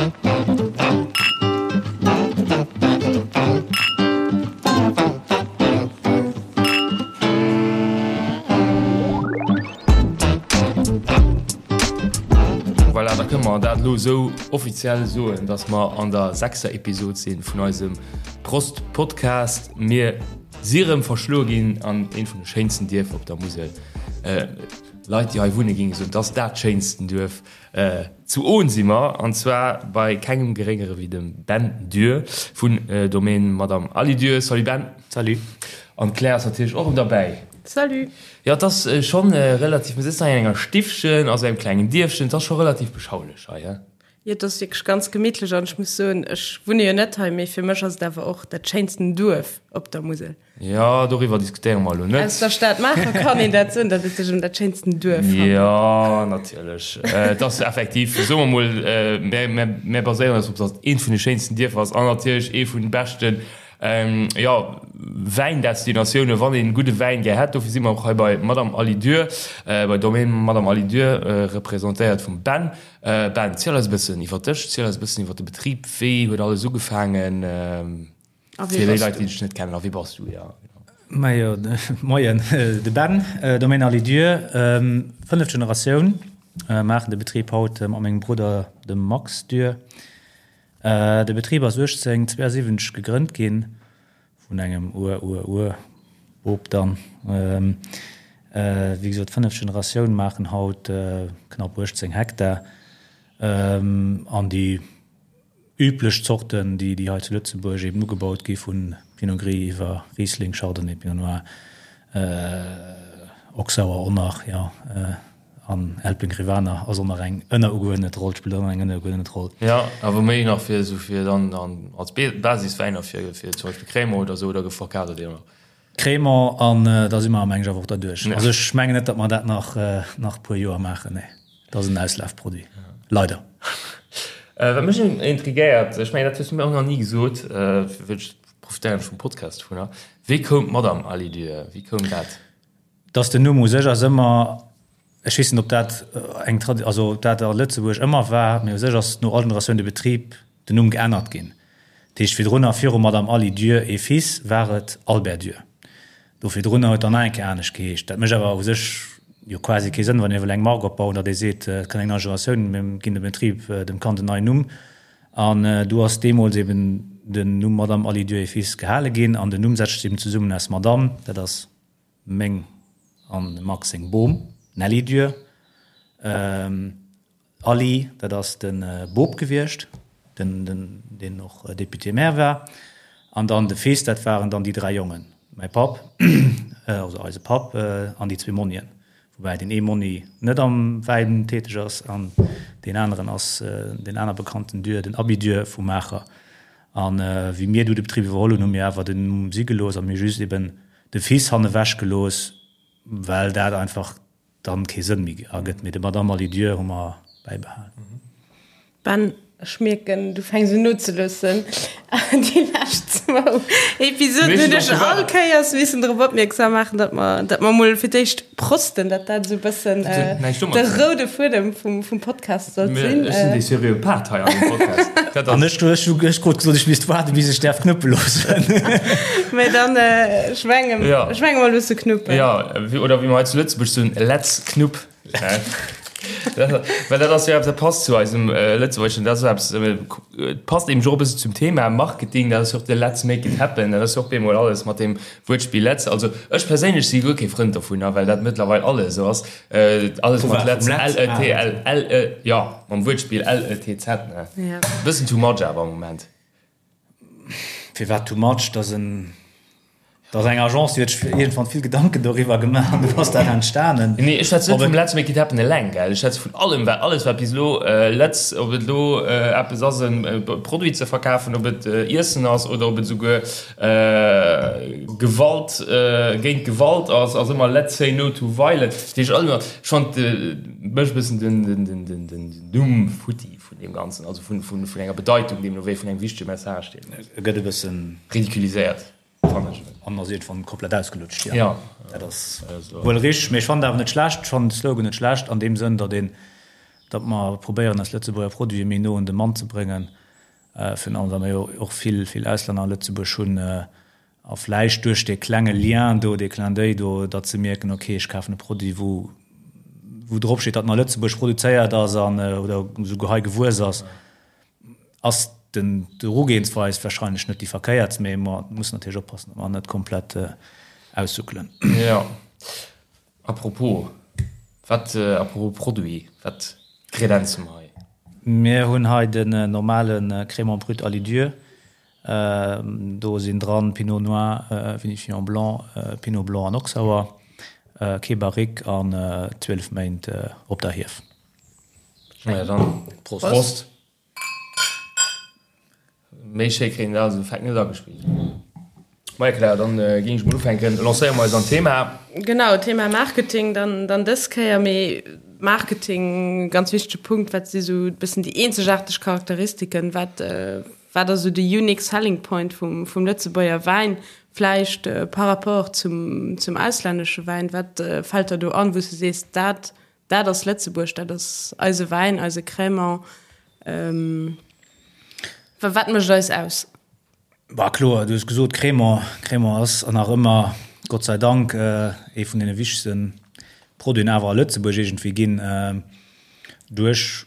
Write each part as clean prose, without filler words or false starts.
Voilà, da kënne mer dat elo esou offiziell soen, dass mer an der sechster Episod si vun eisem Prost Podcast. Mir si rëm verschloe ginn an eent vun de schéinsten Dierfer op der Musel. Leit, déi hei wunne géinge soen, et ass dat schéinsten Duerf. Zu Ohn si mer, an zwar bei kengem geréngere wéi dem Ben Dürr vun Domaine Madame Aly Dürr. Salut Ben. Salut. An d'Claire ass natierlech och erëm derbäi. Salut. Jo, et ass schonn relativ, mir sëtzen hei an enger Stiffchen, also engem klengen Dierfchen, et ass scho relativ beschaulech hei, he? Jo, et ass wierklech ganz gemittlech an ech muss soen, ech wunne jo net hei, mee fir mech ass et awer och dat schéinsten Duerf op der Musel. Jo, doriwwer diskutéiere mer elo net. Aus der Stad Maacher kann een dat soen, datt et sech ëm dat schéinsten Duerf handelt. Jo, natierlech. Et ass effektiv, soe mer mol, mir, mir baséieren eis drop, datt et eent vun de schéinsten Dierfer ass an natierlech ee vun de beschten, jo, Wäindestinatiounen, wann een gudde Wäin gär hätt. Dofir si mer och hei bei Madame Aly Dürr, bei Domaine Madame Aly Dürr, representéiert vum Ben. Ben, ziel eis e bëssen iwwer dech, ziel eis e bëssen iwwer de Betrib. Wéi huet alles ugefaangen? A wee Fir déi bass Leit, du? déi dech net kennen, a wie bass du? Ja, genau. Majo, moien, de Ben, Domaine Aly Dürr, fënneft Generatioun, maachen de Betrib haut mat mengem Brudder, dem Max Dürr. De Betrib ass 1872 gegrënnt ginn vun engem Ur-Ur-Ur-Bop dann. Wéi gesot, fënneft Generatioun, maachen haut knapp 18 Hektar an déi Üblech Zorten, déi déi hei zu Lëtzebuerg eben ugebaut gi vu Pinot Gris iwwer Riesling, Chardonnay, Pinot Noir, Oxauer, Onach, jo, an Elbling Rivaner ass och nach eng ënnerugeuerdnet Roll, spillt och nach eng ënnerugeuerdnet Roll. Jo, awer méi nach fir esou fir dann als Basiswäiner fir fir zum Beispill Crémant oder esou, oder verkaaft der déi och nach? Crémant an da si mer am Englsch awer och derduerch. Also ech mengen net, datt mer dat nach nach e puer Joer maachen. Nee, dat ass en Auslafproduit. Leider. Wat mech intrigéiert, ech mengen dat hues du mir och nach ni gesot, ech profitéieren ech vum Podcast dovunner, wéi koum d'Madame Aly Dürr, wéi koum dat? Dass den Numm u sech ass ëmmer, ech weess net ob dat eng Tradi, also ob dat a Lëtzebuerg ëmmer war, mee u sech ass no all Generatioun de Betrib, den Numm geännert ginn. Dat heescht virdrunner, viru Madame Aly Dürr et Fils, war et Albert Dürr. Do virdrunner huet dann nach eng Kéier anescht geheescht. Dat mécht awer u sech jo quasi kee Sënn, wann ee wëll eng Mark opbauen, datt ee seet, et kënnt eng nei Generatioun, mir ginn dem Betrib, dem Kand en neien Numm. An do ass deemools eben den Numm Madame Aly Dürr et Fils gehale ginn. An den Numm setzt sech eben zesummen aus Madame, dat ass meng an dem Max seng Bom, Nelly Dürr, Aly, dat ass de Bop gewiescht, den, deen och Député-maire war, an dann de Fils, dat waren dann déi dräi Jongen, mäi Papp, also eise Papp, an déi zwee Monnien, woubäi deen ee Monni net am Wäin täteg ass an deen aneren ass deen aner bekannten Dürr, den Abi Dürr vu Maacher. A wéi mir du de Betrib iwwerholl hunn, hu mir awer den Numm si gelooss a mir just eben de Fils hannewech gelooss, well dat einfach dann kee Sënn méi ergëtt. Mee de Madame Alidieu hu mer bäibehalen. Ben, ech mierken, du fänks un nozeloossen. Déi lescht zwou Episoden hunn ech all Kéiers missen drop opmierksam maachen, datt mer, datt mer mol fir d'éischt prosten, datt dat esou e bëssen de roude Fuedem vum, vum Podcast sollt sinn. Ech sinn dee seriöe Part hei an deem Podcast. Dat ass. An ech, ech hu, ech krut gesot, ech misst waarden, bis ech däerf knuppe loossen. Mee dann, ech mengen, ech menge mer loosse knuppen. Jo, oder wéi mer hei zu Lëtzebuerg soen, Let's knupp. Well dat ass jo eppes, dat passt zu eisem Lëtzebuergeschen, dat ass eppes, et passt eben och e bëssen zum Thema Marketing, dat ass jo och de Let's make it happen, dat ass jo och bemol alles mat deem Wuertspill Let's. Also ech perséinlech si guer kee Frënd dovunner, well dat mëttlerweil alles esou ass, alles mat Let's, L E T L, L E, jo, mam Wuertspill L E T Z, ne? E bëssen too much awer am Moment. Firwat too much? Dat ass en, dat ass eng Agence, déi huet sech iergendwann vill Gedanken doriwwer gemaach an du ass dat entstanen. Nee, ech schwätze net vum Let's Make It Happen eleng, gell. Ech schwätze vun allem, wat, alles wat bis elo Let's, ob et elo eppes ass e Produit ze verkafen, ob et Iessen ass oder ob et esouguer Gewalt géint Gewalt ass, ass ëmmer Let's say no to violence. Dat heescht alles ëmmer, ech fand mech e bëssen den, den, den, den, den Numm futti. Vun deem Ganzen, also vun, vun, vun enger Bedeitung, deemno wéi vun engem wichtege Message, deen. E gëtt e bëssen. Ridiculiséiert, fannen ech. An ass iergendwann komplett ausgelutscht, jo. Ja. Dat ass wuel richteg, mee ech fannen et awer net schlecht, ech fannen de Slogan net schlecht an deem Sënn, datt een, datt mer probéieren eis Lëtzebuerger Produite méi no un de Mann ze bréngen, virun allem well mer jo och vill, vill Auslänner a Lëtzebuerg hunn, a vläicht duerch dee klenge Lien do, dee Clin d'oeil do, datt se mierken, ok, ech kafen e Produit, wou, wou drop steet, datt en a Lëtzebuerg produzéiert ass an, oder esouguer hei gewuess ass. Ass den d'Erugehensweis wahrscheinlech net déi verkéiertst, mee mer mussen natierlech oppassen, datt mer net komplett aussuckelen. Jo. A propos, wat, a propos Produit, wat kredenze mer hei? Mir hunn hei den normale Crémant brut à Lidieu. Do sinn dran Pinot Noir, Vinifiant Blanc, Pinot Blanc an Auxerrois, kee Barrique an 12 Méint op der Hief. Naja, dann Prost. Prost. Méi schéi kréien dat also Fakt net agespillt. Maja Claire, dann äh, géing ech mol ufänken. Lancéiere mer eis an d'Thema. Genau, Thema Marketing dann, dann dës Kéier, mee Marketing, ganz wichtege Punkt, wat si sou e bëssen déi eenzegaarteg Charakteristiken, wat, äh, wat ass sou de unique selling point vum, vum Lëtzebuerger Wäin, vläicht äh, par rapport zum, zum auslännesche Wäin, wat äh, fält der do an, wou s du sees, dat Dat ass Lëtzebuerg, dat ass eise Wäin, eise Crémant. Wat mécht eis aus? Bah kloer, du hues gesot Crémant. Crémant ass an nach ëmmer, Gott sei Dank, ee vun deene wichtegste Produiten awer a Lëtzebuerg iergendwéi ginn. Duerch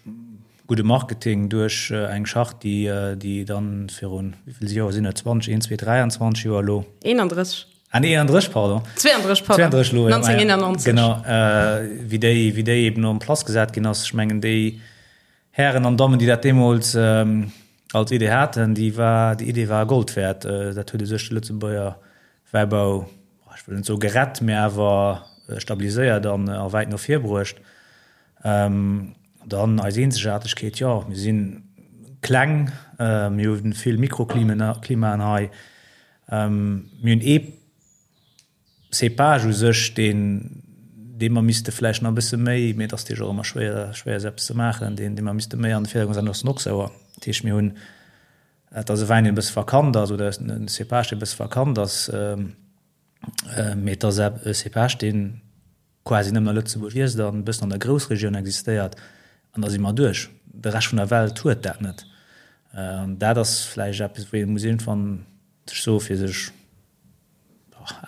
gudde Marketing, duerch eng Charte, déi, déi dann virun, wéi vill Joer sinn et, 20, 1, 2, 23 Joer elo? 31. Ah nee, 31, pardon. 32, pardon. 32 elo, ja. 1991. Genau, äh, wéi déi, wéi déi eben en place gesat ginn ass. Ech mengen, déi Hären an Dammen, déi dat deemools ähm, als Idee haten, déi war, déi Idee war Gold wäert. Äh, dat huet u sech de Lëtzebuerger Wäibau, ech wëll net soe gerett, mä awer stabiliséiert an a wäit no vir bruecht. Ähm, dann eis Eenzegaartegkeet, jo, mir si kleng, äh, mir hu vill Mikroklimen, Klimaen hei. Mir hunn ee Cépage u sech, deen, dee mer misste vläicht nach e bësse méi, mee et ass natierlech och ëmmer schwéier, schwéier esou eppes ze maachen, deen, dee mer misste méi an de Virdergrond setzen, dat ass den Auxerrois. Dat heescht, mir hunn, et ass e Wäin, deen e bësse verkannt ass, oder e Cépage, dee e bësse verkannt ass, mee et ass e Cépage, deen quasi nëmmen a Lëtzebuerg wiisst an e bëssen an der Groussregioun existéiert, an da si mer duerch. De Rescht vun der Welt huet dat net. An dat ass vläicht eppes, wou ee muss iergendwann sech soen, fir sech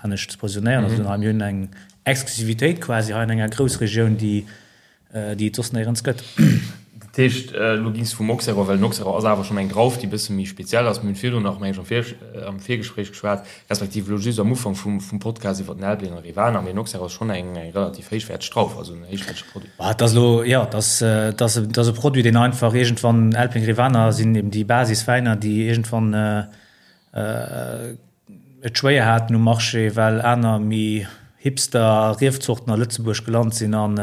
anescht ze positionéieren. Also mir hunn eng Exklusivitéit quasi hei an enger Groussregioun, déi déi et soss néierens gëtt. Dat heescht, elo gings de vum Auxerrois, well den Auxerrois ass awer schonn eng Drauf, déi e bësse méi speziell ass. Mir hunn virdrun nach, meng ech, am Vir, am Virgespréich geschwat, respektiv elo just am Ufank vum, vum Podcast iwwer den Elbling an Rivaner, mee den Auxerrois ass schonn eng, eng relativ héichwäerteg Drauf, also en héichwäertege Produit. Bah, et ass elo, jo, et ass, et ass, et ass e Produit, deen einfach iergendwann, Elbling, Rivaner sinn eben déi Basiswäiner, déi iergendwann, et schwéier haten um Marché, well aner méi Hipster Riefzorten a Lëtzebuerg gelant sinn an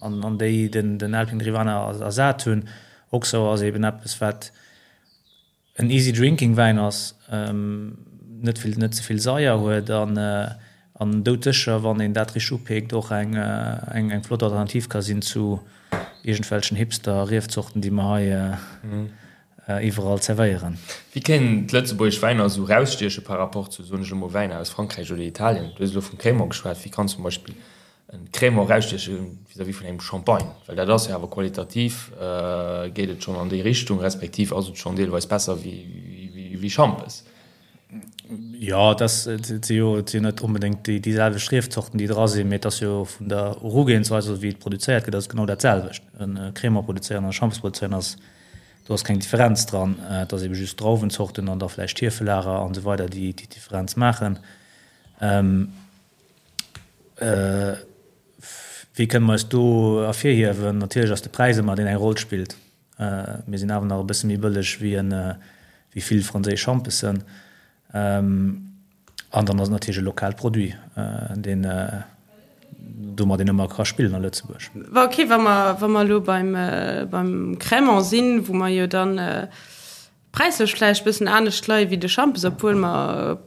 an déi den den Elfing Rivaner ersat hunn. Auxerrois ass eben eppes wat en easy drinking Wäin ass, net vill net ze vill Saier huet an an doudsécher wann een dat richteg upeekt och eng eng eng flott Alternativ ka sinn zu iergendwelchen Hipster Riefzorten déi mer hei iwwerall zerwéieren. Wéi kéinten d'lëtzebuergesch Wäiner esou erausstieche par rapport zu, soen ech elo mol, Wäiner aus Frankräich oder Italien? Du hues elo vum Crémant geschwat. Wéi kann zum Beispill e Crémant erausstieche vis-à-vis vun engem Champagne? Well dat ass jo awer qualitativ geet et schonn an déi Richtung, respektiv ass et schonn deelweis besser wéi Schampes. Jo, et ass, et si jo, et sinn net onbedéngt déi déi selwecht Riefzorten, déi dra sinn, mee et ass jo vun der Erugehensweis, also wéi et produzéiert gëtt, ass et genau dat selwecht. E Crémant produzéieren an e Schampes produzéieren ass, do ass keng Differenz dran. Et ass ebe just d'Drauwenzorten an da vläicht d'Hiefelager an esou weider, déi déi Differenz maachen. Wéi kënne mer eis do ervirhiewen? Natierlech ass de Präis ëmmer deen eng Roll spillt. Mir sinn awer nach e bësse méi bëlleg wéi en, wéi vill franséisch Schampesen. An dann ass et natierlech e lokaalt Produit, deen, domat een ëmmer ka spillen a Lëtzebuerg. Wa ok, wa mer, wa mer elo beim, beim Crémant sinn, wou mer jo dann präislech vläicht e bëssen anescht leie wéi de Schampes, obwuel mer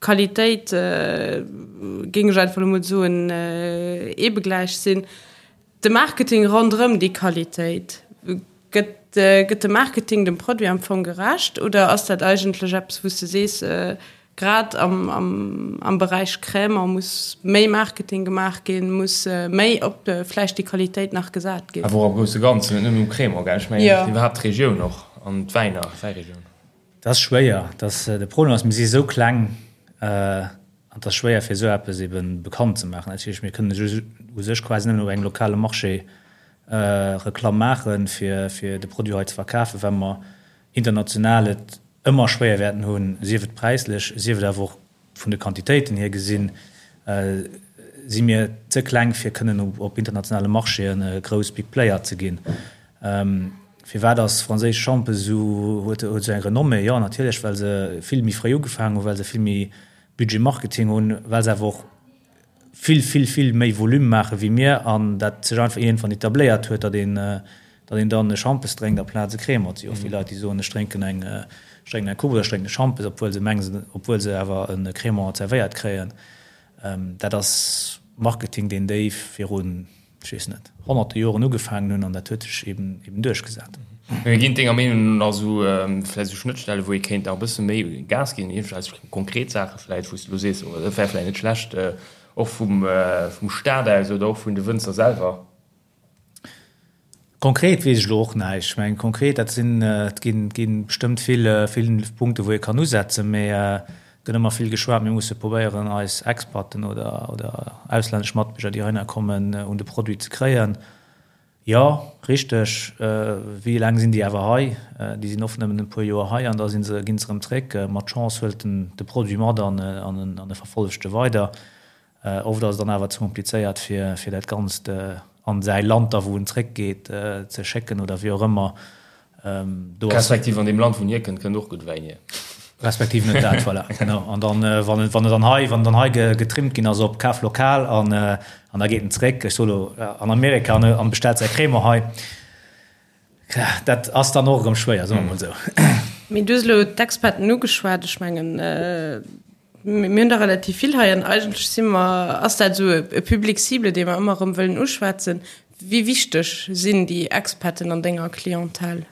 Qualitéit, géing ech einfach elo mol soen, eebegläich sinn. De Marketing ronderëm déi Qualitéit, gëtt, gëtt de Marketing dem Produit am Fong gerecht oder ass dat eigentlech eppes, wou s de sees, Grad am, am, am Beräich Crémant muss méi Marketing gemaach ginn, muss méi op vläicht déi Qualitéit nach gesat ginn. Awer och am grousse Ganzen, net nëmmen um Crémant, gell? Ech mengen Jo. iwwerhaapt d'Regioun och an d'Wäiner, d'Wäiregioun. Dat ass schwéier. Dat, de Problem ass, mir si esou kleng an et ass schwéier fir esou eppes ebe bekannt ze maachen. Dat heescht, mir kënnen u sech quasi nëmmen op engem lokale Marché Reklamm maachen, fir, fir de Produit hei ze verkafen, well mer international et ëmmer schwéier wäerten hunn, sief et präislech, sief et awer och vun de Quantitéiten hier gesinn, si mir ze kleng fir kënnen op internationale Marchéen e grouss Big Player ze ginn. Firwat ass franséisch Schampes esou, huet esou eng Renommée? Jo natierlech well se vill méi fréi ugefaangen hunn, well se vill méi Budget Marketing hunn, well se awer och vill, vill, vill méi Volume maache wéi mir an dat sech einfach iergendwann etabléiert huet, datt een, datt een dann e Schampes drénkt amplaz e Cremant. Et si och vill Leit, déi soen, ech drénken eng, ech drénken eng Coupe oder ech drénken e Schampes, obwuel se mengen, obwuel se awer e Cremant zerwéiert kréien. Dat ass Marketing, deen déi virun, ech weess net, honnerte Joren ugefaangen hunn an dat huet sech eben, eben duerchgesat. Mee ginn denger Meenung no nach esou vläicht esou Schnëttstelle wou ee kéint nach e bësse méi Gas ginn, iergendwelch konkret Saache vläicht, wou s de elo sees, oh dat wär vläicht net schlecht, och vum, vum Staat aus oder och vun de Wënzer selwer? Konkret weess ech elo och näischt. Ech mengen konkret, dat sinn, et ginn, ginn bestëmmt vill, vill Punkte wou ee kann usetzen, mee et gëtt ëmmer vill geschwat, mir musse probéieren eis Expaten oder, oder auslännesch Matbierger déi heihinner kommen, un de Produit ze kréien. Jo, richteg. Wéi laang sinn déi awer hei? Déi sinn oft nëmmen e puer Joer hei an da sinn se, ginn se erëm zréck. Mat Chance huelt en de Produit mat an en e verfollegt e weider. Oft ass et dann awer ze komplizéiert fir fir dat Ganzt an säi Land da wou en zréck geet ze schécken oder wéi och ëmmer. Do ass. Respektiv an deem Land wou en hierkënnt, kënnt och gutt Wäin hier. Respektiv net dat, voilà, genau. An dann, wann en, wann en dann hei, wann en dann hei getrimmt ginn ass op Kaf lokal an, an da geet en zréck, ech soe lo, an Amerika an, an bestellt säi Crémant hei, dat ass dann och erëm schwéier, soe mer mol esou. Mee du hues elo d'Expaten ugeschwat. Ech mengen, mir hunn der relativ vill hei an eigentlech si mer, ass dat esou e Public cible, dee mer ëmmer erëm wëllen uschwätzen. Wéi wichteg sinn déi Expaten an denger Clientèle?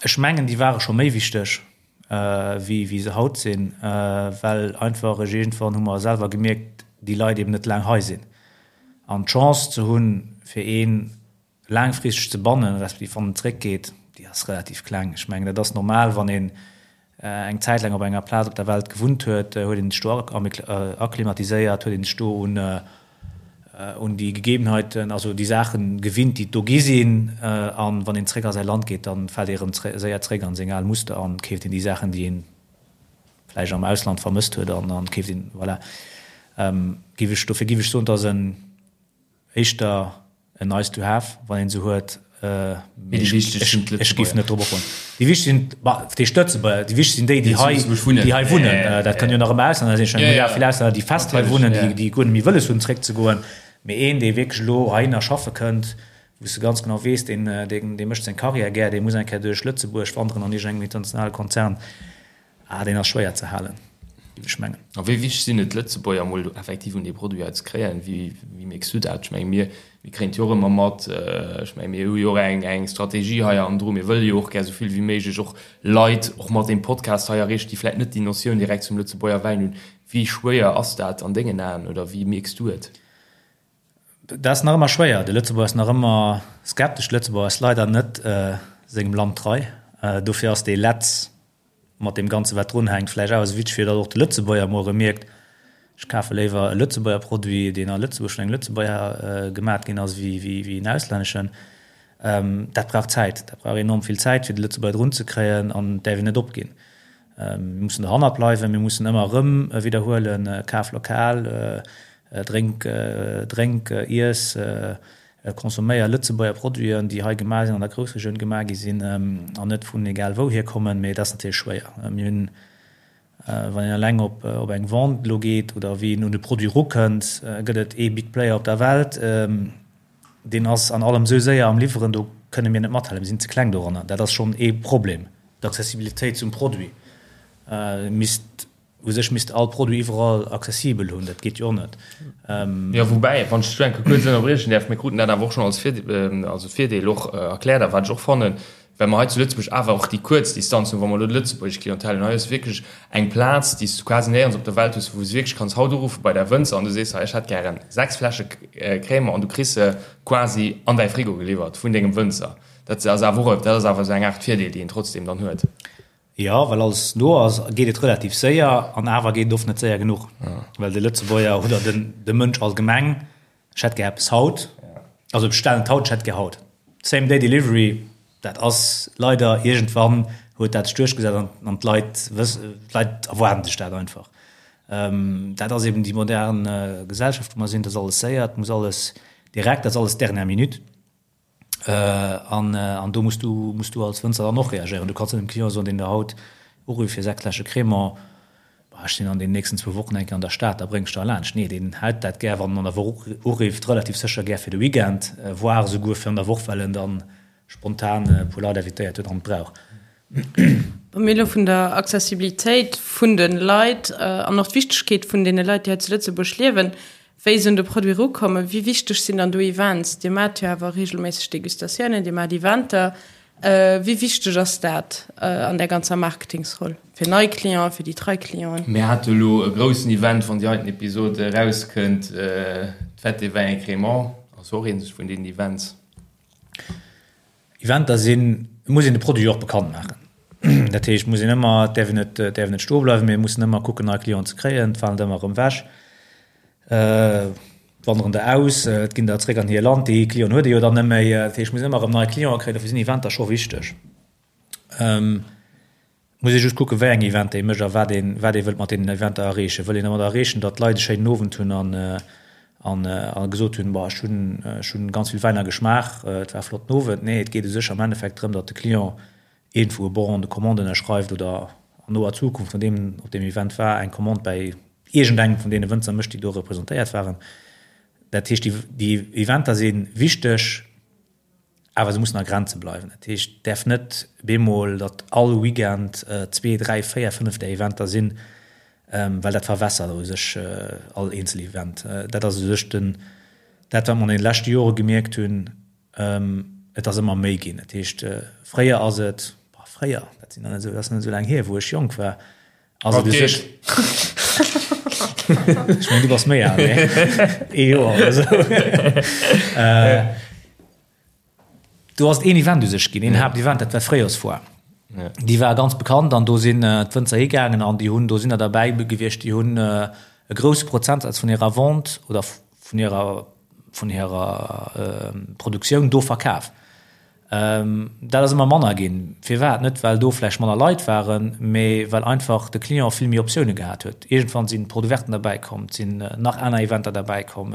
Ech mengen, déi ware scho méi wichteg, wéi wéi se haut sinn, well einfach ech iergendwann hu mer selwer gemierkt, déi Leit eben net laang hei sinn. An d'Chance ze hunn, fir ee laangfristeg ze bannen, respektiv wann en zréckgeet, déi ass relativ kleng. Ech mengen, dat ass normal, wann een eng Zäit laang op enger Plaz op der Welt gewunnt huet, huet een sech do akklimatiséiert, huet een sech do un un déi Gegebenheiten, also déi Saachen gewinnt, déi et do gi sinn. An wann een zréck a säi Land geet, dann fält ee rëm séier zréck an seng al Muster an keeft een déi Saachen, déi een vläicht am Ausland vermësst huet an an keeft een, voilà. Giff ech, dofir giff ech soen, et ass en éischter En nice to have, wann een se huet. Mee déi wichteg sinn d'Lëtzebuerger. Ech géif net drop opbauen. Déi wichteg sinn, bah, wat heescht Lëtzebuerger? Déi wichteg sinn déi, déi hei, déi hei wunnen. Dat kënnen jo nach ëmmer Auslänner sinn. Ech mengen, mir hu vill Auslänner, déi fest hei wunnen, déi, déi guer net méi wëlles hunn, zréckzegoen. Mee een, dee wierklech elo heihinner schaffe kënnt, wou s de ganz genau weess, deen, deen, dee mécht seng Karriär gär, dee muss eng Kéier duerch Lëtzebuerg wanderen an iergendengem internationale Konzern, Ah, deen ass schwéier ze halen, géif ech mengen. A wéi wichteg sinn et d'Lëtzebuerger emol effektiv un dee Produit hei ze kréien? Wéi, wéi mierks du dat? Ech menge mir, mir kréien et jo och ëmmer mat. Ech menge mir hu jo och eng, eng Strategie hei hannendru. Mir wëlle jo och gär esou vill wéi méiglech och Leit och mat deem Podcast hei erreechen, déi vläicht net déi Notioun direkt zum Lëtzebuerger Wäin hunn. Wéi schwéier ass dat an dengen Aen oder wéi mierks du et? Dat ass nach ëmmer schwéier. De Lëtzebuerger ass nach ëmmer skeptesch. De Lëtzebuerger ass leider net sengem Land trei. Dofir ass dee Letz mat deem Ganze wat drun hänkt vläicht awer esou wichteg, fir datt och de Lëtzebuerger emol erëm mierkt, ech kafe léiwer e Lëtzebuerger Produit, deen a Lëtzebuerg vun engem Lëtzebuerger gemat ginn ass, wéi en auslänneschen. Dat brauch Zäit. Dat brauch enorm vill Zäit, fir de Lëtzebuerger drun ze kréien an et däerf een net opginn. Mir mussen dohannert bleiwen, mir mussen ëmmer erëm widderhuelen, kaf lokal, drénk, drénk, iess, consomméier Lëtzebuerger Produiten, déi hei gemaach sinn, an der Groussregioun gemaach gi sinn an net vun egal wouhier kommen. Mee dat ass natierlech schwéier. Mir hunn, wann een eleng op op eng Vente elo geet oder wéi een un de Produit erukënnt, gëtt et ee Big Player op der Welt, Deen ass an allem esou séier am Liwweren, do kënne mir net mathalen, mir sinn ze kleng doranner. Dat ass schonn ee Problem, d'Accessibilitéit zum Produit. Misst, u sech misst all Produit iwwerall accessibel hunn, dat geet jo och net. Jo, woubäi, wann ech dech do eng Kéier kuerz ënnerbriechen däerf, mir kruten dat awer och schonn als Virdeel, also Virdeel och erkläert a wat ech och fannen. Well mer hei zu Lëtzebuerg awer och déi kuerz Distanz hunn, wa mer elo d'lëtzebuergesch Clientèle hunn. Hei ass wierklech eng Plaz, déi s du quasi néierens op der Welt hues, wou s du wierklech kanns haut uruffe bei däi Wënzer an du sees, hei ech hätt gären 6 Fläsche Crémant an du kriss se quasi an däi Frigo geliwwert vun dengem Wënzer. Dat ass awer och, dat ass awer esou eng Aart Virdeel, déi een trotzdem dann huet. Jo, well alles no ass, geet et relativ séier an awer geet et oft net séier genuch, well de Lëtzebuerger oder den de Mënsch allgemeng, ech hätt gär eppes haut, also bestellen et haut, ech hätt gär haut. Same day delivery, dat ass leider iergendwann huet dat sech duerchgesat an an d'Leit wëss d'Leit erwaarden sech dat einfach. Dat ass eben déi modern Gesellschaft wou mer sinn, et ass alles séier, et muss alles direkt, dat ass alles dernière minute. An an do muss du muss du als Wënzer dann och reagéieren. Du kanns net dem Client soen, deen der haut urifft fir 6 Fläsche Crémant, Bah, ech sinn an den nächsten zwou Wochen eng Kéier an der Stad, da bréng ech der laanscht. Nee, deen hält dat gär, wann en an der Woch urifft, relativ sécher gär fir de Weekend, voire esouguer fir an der Woch, well en dann spontan e puer Leit invitéiert huet an et brauch. Wa mir elo vun der Accessibilitéit vun de Leit an och d'Wichtegkeet vun deene Leit, déi hei zu Lëtzebuerg liewen, wéi se un de Produit erukommen, wéi wichteg sinn dann do Events? Dir maacht jo awer reegelméisseg Degustatiounen, Dir maacht Eventer. Wéi wichteg ass dat an där ganzer Marketingsroll fir nei Clienten, fir déi trei Clienten? Mir hate elo e groussen Event, wann déi heiten Episod erauskënnt, d'Fête des vins et crémants ass och eent vun deenen Events. Eventer sinn, et muss een de Produit jo och bekannt maachen. Dat heescht, et muss een ëmmer, et däerf een net, et däerf een net stoe bleiwen, mee et mussen ëmmer kucken, nei Clienten ze kréien. Et falen der ëmmer erëm ewech, et wanderen der aus, et ginn der zréck an hir Land. Déi Clienten huet ee jo dann net méi. Dat heescht, et muss een ëmmer erëm nei Clienten kréien. Dofir sinn Eventer scho wichteg. Muss ee just kucken, wéi eng Eventer ee mécht a wat een, wat ee wëllt mat deenen Eventer erreechen. Wëll een domat erreechen, datt d'Leit e schéinen Owend hunn an, an, a gesot hunn, Boah, ech hunn, ech hunn ganz vill Wäiner geschmaach, et war e flotten Owend. Nee, et geet u sech am Endeffekt drëm, datt de Client iergendwou e Bon de commande ënnerschreift oder an noer Zukunft, nodeem en op deem Event war, eng Commande bäi iergendengem vun deene Wënzer mécht, déi do representéiert waren. Dat heescht, déi, déi Eventer si wichteg. Awer se mussen a Grenze bleiwen. Dat heescht, et däerf net bemol, datt all Weekend zwee, dräi, véier, fënnef där Eventer sinn, well dat verwässert u sech all eenzel Event. Dat ass u sech den, dat wat mer an deene leschte Jore gemierkt hunn, et ass ëmmer méi ginn. Dat heescht, fréier ass et, fréier, dat sinn nach net esou, dat ass net esou laang hier, wou ech jonk war, Ass et u sech. Ech mengen, du bass méi al, nee? Ee Joer oder esou. Do ass et een Event u sech ginn, een Haaptevent, dat war d'Fréijorsfoire. Déi war ganz bekannt an do sinn d'Wënzer higaangen an déi hunn, do sinn der derbäi gewiescht, déi hunn e grousse Prozentsaz vun hirer Vente oder vun hirer, vun hirer Produktioun do verkaf. Dat ass ëmmer manner ginn. Firwat? Net well do vläicht manner Leit waren, mee well einfach de Client vill méi Optioune gehat huet. Iergendwann sinn d'Porte ouverten derbäi komm, et sinn nach aner Eventer derbäi komm,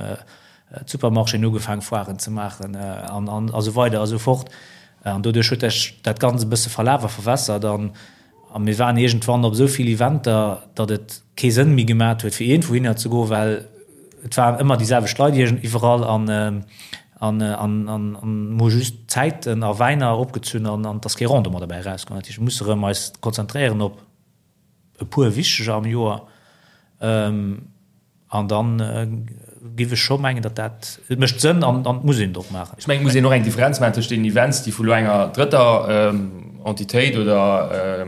d'Supermarchéen hu ugefaangen Foiren ze maachen an an esou weider a sou fort. An doduerch huet sech dat Ganzt e bësse verlaf a verwässert an A mir waren iergendwann op esou vill Eventer, datt et kee Sënn méi gemat huet, fir iergendwouhinner ze goen, well et waren ëmmer déi selwecht Leit iergend iwwerall an an an an mir hu just Zäiten a Wäiner opgezunn an an et ass kee Rendement derbäi erauskomm. Dat heescht, mir musse rëm eis konzentréieren op e puer wichteger am Joer. An dann giff ech scho mengen, datt dat, et mécht Sënn an et muss een et och maachen. Ech mengen, et muss een och eng Differenz maachen tëscht deenen Events, déi vu lo enger drëtter Entitéit oder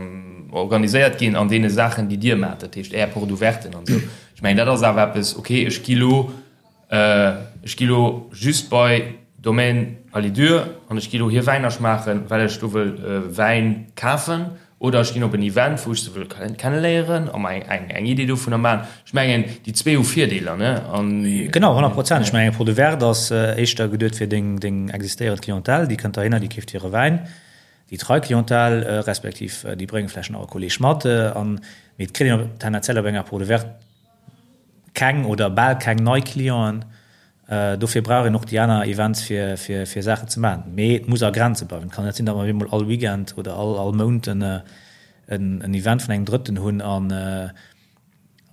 organiséiert ginn, an deene Saachen, déi Dir maacht, dat heescht Är Porte ouverten an esou. Ech mengen, dat ass awer eppes, okay, ech gi lo, ech gi lo just bei Domaine Alidure an ech gi lo hir Wäiner schmaachen, well ech do wëll Wäin kafen Oder ech ginn op en Event, wou ech se wëll kenneléieren a mer eng Idee dovunner maachen. Ech mengen, déi zwee hu Virdeeler, ne? An. Genau, 100 Prozent. Ech mengen, eng Porte ouverte ass éischter geduet fir deng existéierend Clientèle, déi kënnt dohinner, déi keeft hire Wäin. Déi trei Clientèle, respektiv déi brénge vläicht nach e Kolleeg mat. An, mee et kritt een tendenziell op enger Porte ouverte keng oder bal keng nei Clienten. Dofir brauch een och déi aner Events fir fir Saachen ze maachen. Mee et muss a Grenze bleiwen. Et kann net sinn, datt mer op eemol all Weekend oder all all Mount en en Event vun engem Drëtten hunn an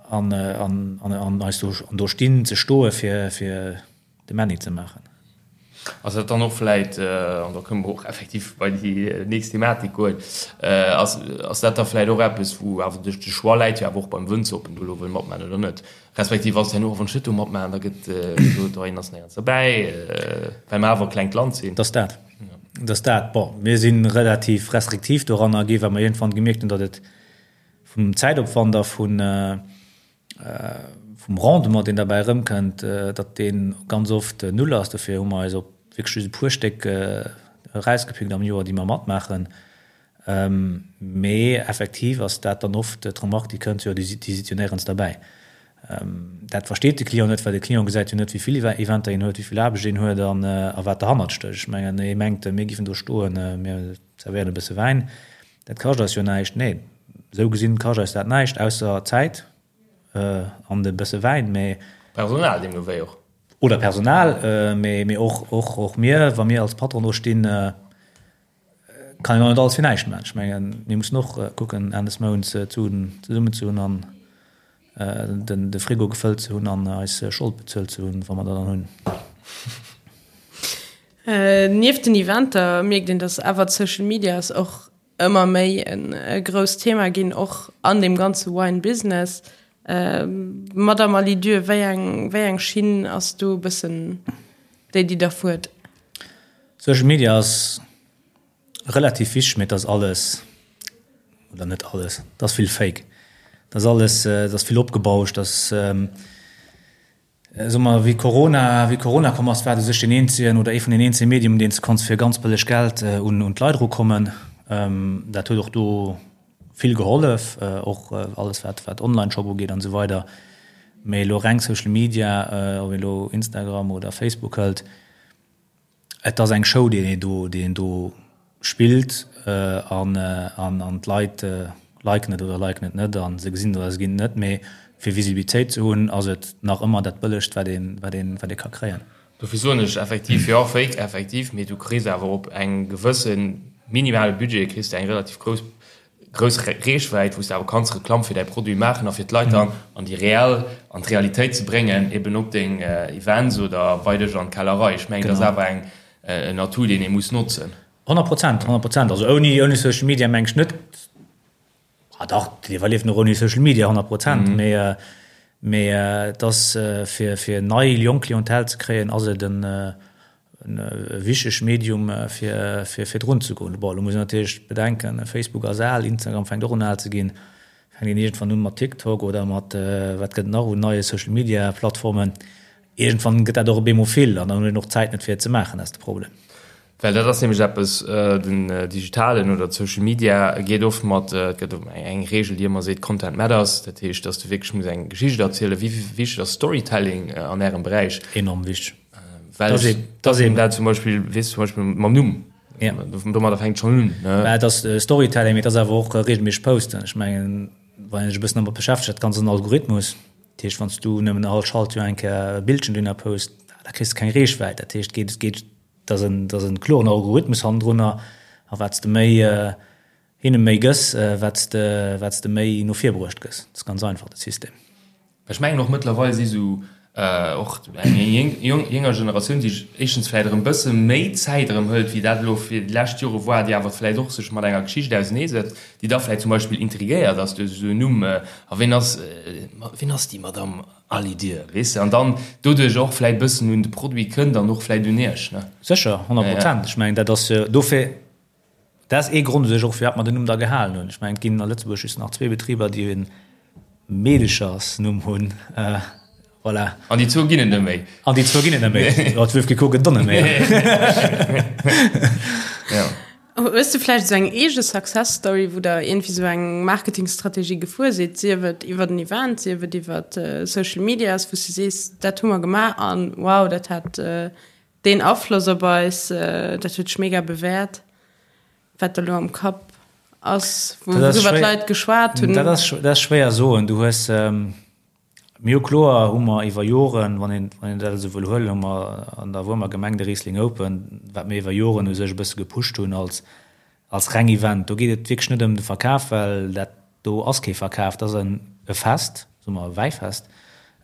an an an eis do an do stinn ze stoe fir fir de Männi ze maachen. Ass dat dann och vläit, an da kënne mer och effektiv bei déi nächst Thematik goen, ass ass dat da vläit och eppes, wou awer de Choix läit jo awer och beim Wënzer, ob en do elo wëll matmaachen oder net? Respektiv ass et herno och, wann ech net do matmaachen, da gëtt gesot, oh, hien ass néierens derbäi, well mer awer e klengt Land sinn. Dat ass dat. Dass dat, bon, mir si relativ restriktiv doranner gi well mer iergendwann gemierkt hunn, datt et vum Zäitopwand a vun, vum Rendement, deen derbäi erëmkënnt, datt dee ganz oft null ass. Dofir hu mer eis op wierklech just e puer Stéck erausgepickt am Joer, déi mer matmaachen. Mee effektiv ass dat dann oft d'Remark, déi kënnt, jo, déi sidd jo néierens derbäi. Dat versteet de Client net, well de Client gesäit jo net, wéi vill Eventer een huet, wéi vill Aarbecht een huet a wat derhannert stécht. Ech mengen, ee mengt, mir géifen do stoen, mir zerwéieren e bësse Wäin, dat kascht eis jo näischt. Nee, esou gesinn kascht eis dat näischt, ausser Zäit an e bësse Wäin, mee. Personal deemno wéi och. Oder Personal, mee och mir, wa mir als Patron do stinn, Kann een och net alles fir näischt maachen. Ech mengen, mir mussen och kucken, Enn des Mounts d'Suen zesummen ze hunn an de Frigo gefëllt ze hunn an eis Schold bezuelt ze hunn, wa mer der dann hunn. Nieft den Eventer mierkt een, datt awer d'Social Medias och ëmmer méi e grousst Thema ginn, och an deem ganze Wine Business. Madamm Alidieu, wéi eng, wéi eng Schinn ass do e bëssen déi, déi Der fuert? Social Media ass relativ wichteg, mee et ass alles, oder net alles, et ass vill Fake. Et ass alles, et ass vill opgebauscht, et ass, soe mer, wéi Corona, wéi Corona komm ass, war et u sech deen eenzegen oder ee vun den eenzege Medium, deen s de konns fir ganz bëlleg Geld un d'Leit erukommen. Dat huet och do vill gehollef, och alles wat wat Online-Shop ugeet an esou weider. Mee elo reng Social Media, ob een elo Instagram oder Facebook hëlt, Et ass eng Show, déi een do, déi een do spillt an, an, an d'Leit liken et oder liken et net a se gesinn et oder se ginn et net. Mee fir Visibilitéit ze hunn, ass et nach ëmmer dat Bëllegst, wat een, wat een, wat ee ka kréien. Dofir soen ech effektiv, jo, fake, effektiv, mee du kriss awer op engem gewësse minimale Budget kriss de eng relativ grouss grouss Reechwäit, wou s de awer kanns Reklamm fir däi Produit maachen a fir d'Leit dann an déi reell, an d'Realitéit ze bréngen, eben op deng Events oder bei dech an d'Kellerei. Ech mengen, dat ass awer eng, en Atout, deen ee muss notzen. 100%, 100%. Also ouni, ouni Social Media meng ech net, ah dach, et iwwerlieft och ouni Social Media, 100%, mee, mee et ass fir, fir nei, jonk Clientèle ze kréien, ass et en, E wichtegt Medium fir virdrun ze goen. Bon, elo muss een natierlech bedenken, Facebook ass al, Instagram fänkt och un al ze ginn, fänkt een iergendwann un mat TikTok oder mat wat gëtt et nach un neie Social Media Plattformen. Iergendwann gëtt dat och op eemol vill an dann huet een och d'Zäit net fir et ze maachen, dat ass de Problem. Well dat ass nämlech eppes, den digitalen oder d'Social Media geet oft mat, et gëtt eng Reegel déi ëmmer seet, Content matters, dat heescht, datt s de wierklech muss eng Geschicht erzielen. Wéi wichteg ass Storytelling an Ärem Beräich? Enorm wichteg. Well das eben, das eben dat zum Beispiel wees zum Beispiel mam Numm ja. domadder fänkt schon un ne? Ja, das äh, Storytelling mit das awer och äh, regelméisseg posten. Ech mengen wann ech e bëssen domat beschäftegt, dat ganz en Algorithmus. Dat heescht wann du nëmmen all Schaltjoer eng Kéier e Bildchen dunner post, da kriss du keng Reechwäit. Dat heescht geet geet dat en dat en kloren Algorithmus hannendrunner a wat de méi äh, hinne méi gëss, wat s de wat s de méi no vir bruecht gëss. Dat ass ganz einfach de System. Ech mengen och mëttlerweil si sou och eng jénger Generatioun, déi sech éischtens vläicht erëm bësse méi Zäit erëm hëlt, wéi dat elo fir déi lescht Jore war, déi awer vläicht och sech mat enger Geschicht auseneesetzt, déi da vläicht zum Beispill intrigéiert ass duerch esou en Numm, a ween ass, ween ass déi Madamm Alidir, weess de, an dann doduerch och vläicht bëssen un de Produit kënnt an och vläicht un Iech, ne? Sécher, 100 Prozent. Ech mengen, dat ass jo dofir. Dat ass ee Grond u sech och, firwat mer den Numm da gehalen hunn. Ech mengen, et ginn a Lëtzebuerg just nach zwee Betriber, déi e Meedechersnumm hunn. Voilà. An déi zwou ginn et net méi. An déi zwou ginn et net méi. Jo, d'Wölfke gëtt et och net méi. Ja. Hues de vläicht esou eng eege Success Story, wou der iergendwéi esou eng Marketingstrategie gefuer sidd, sief et iwwer en Event, sief et iwwer Social Medias, wou s de sees, dat hu mer gemaach an wow, dat hat Deen Afloss op eis, dat huet sech mega bewäert, wat der elo am Kapp ass, wouriwwer d'Leit geschwat hunn. Dat ass, dat ass schwéier soen. Du hues, mir hu kloer hu mer iwwer Joren, wann een, wann een dat esou wëll huelen, hu mer an der Wuermer Gemeng de Riesling Open, wat mir iwwer Joren u sech e bësse gepusht hunn als, als reng Event. Do geet et wierklech net ëm de Verkaf, well dat do ass kee Verkaf, dat ass en e Fest, soe mer e Wäifest,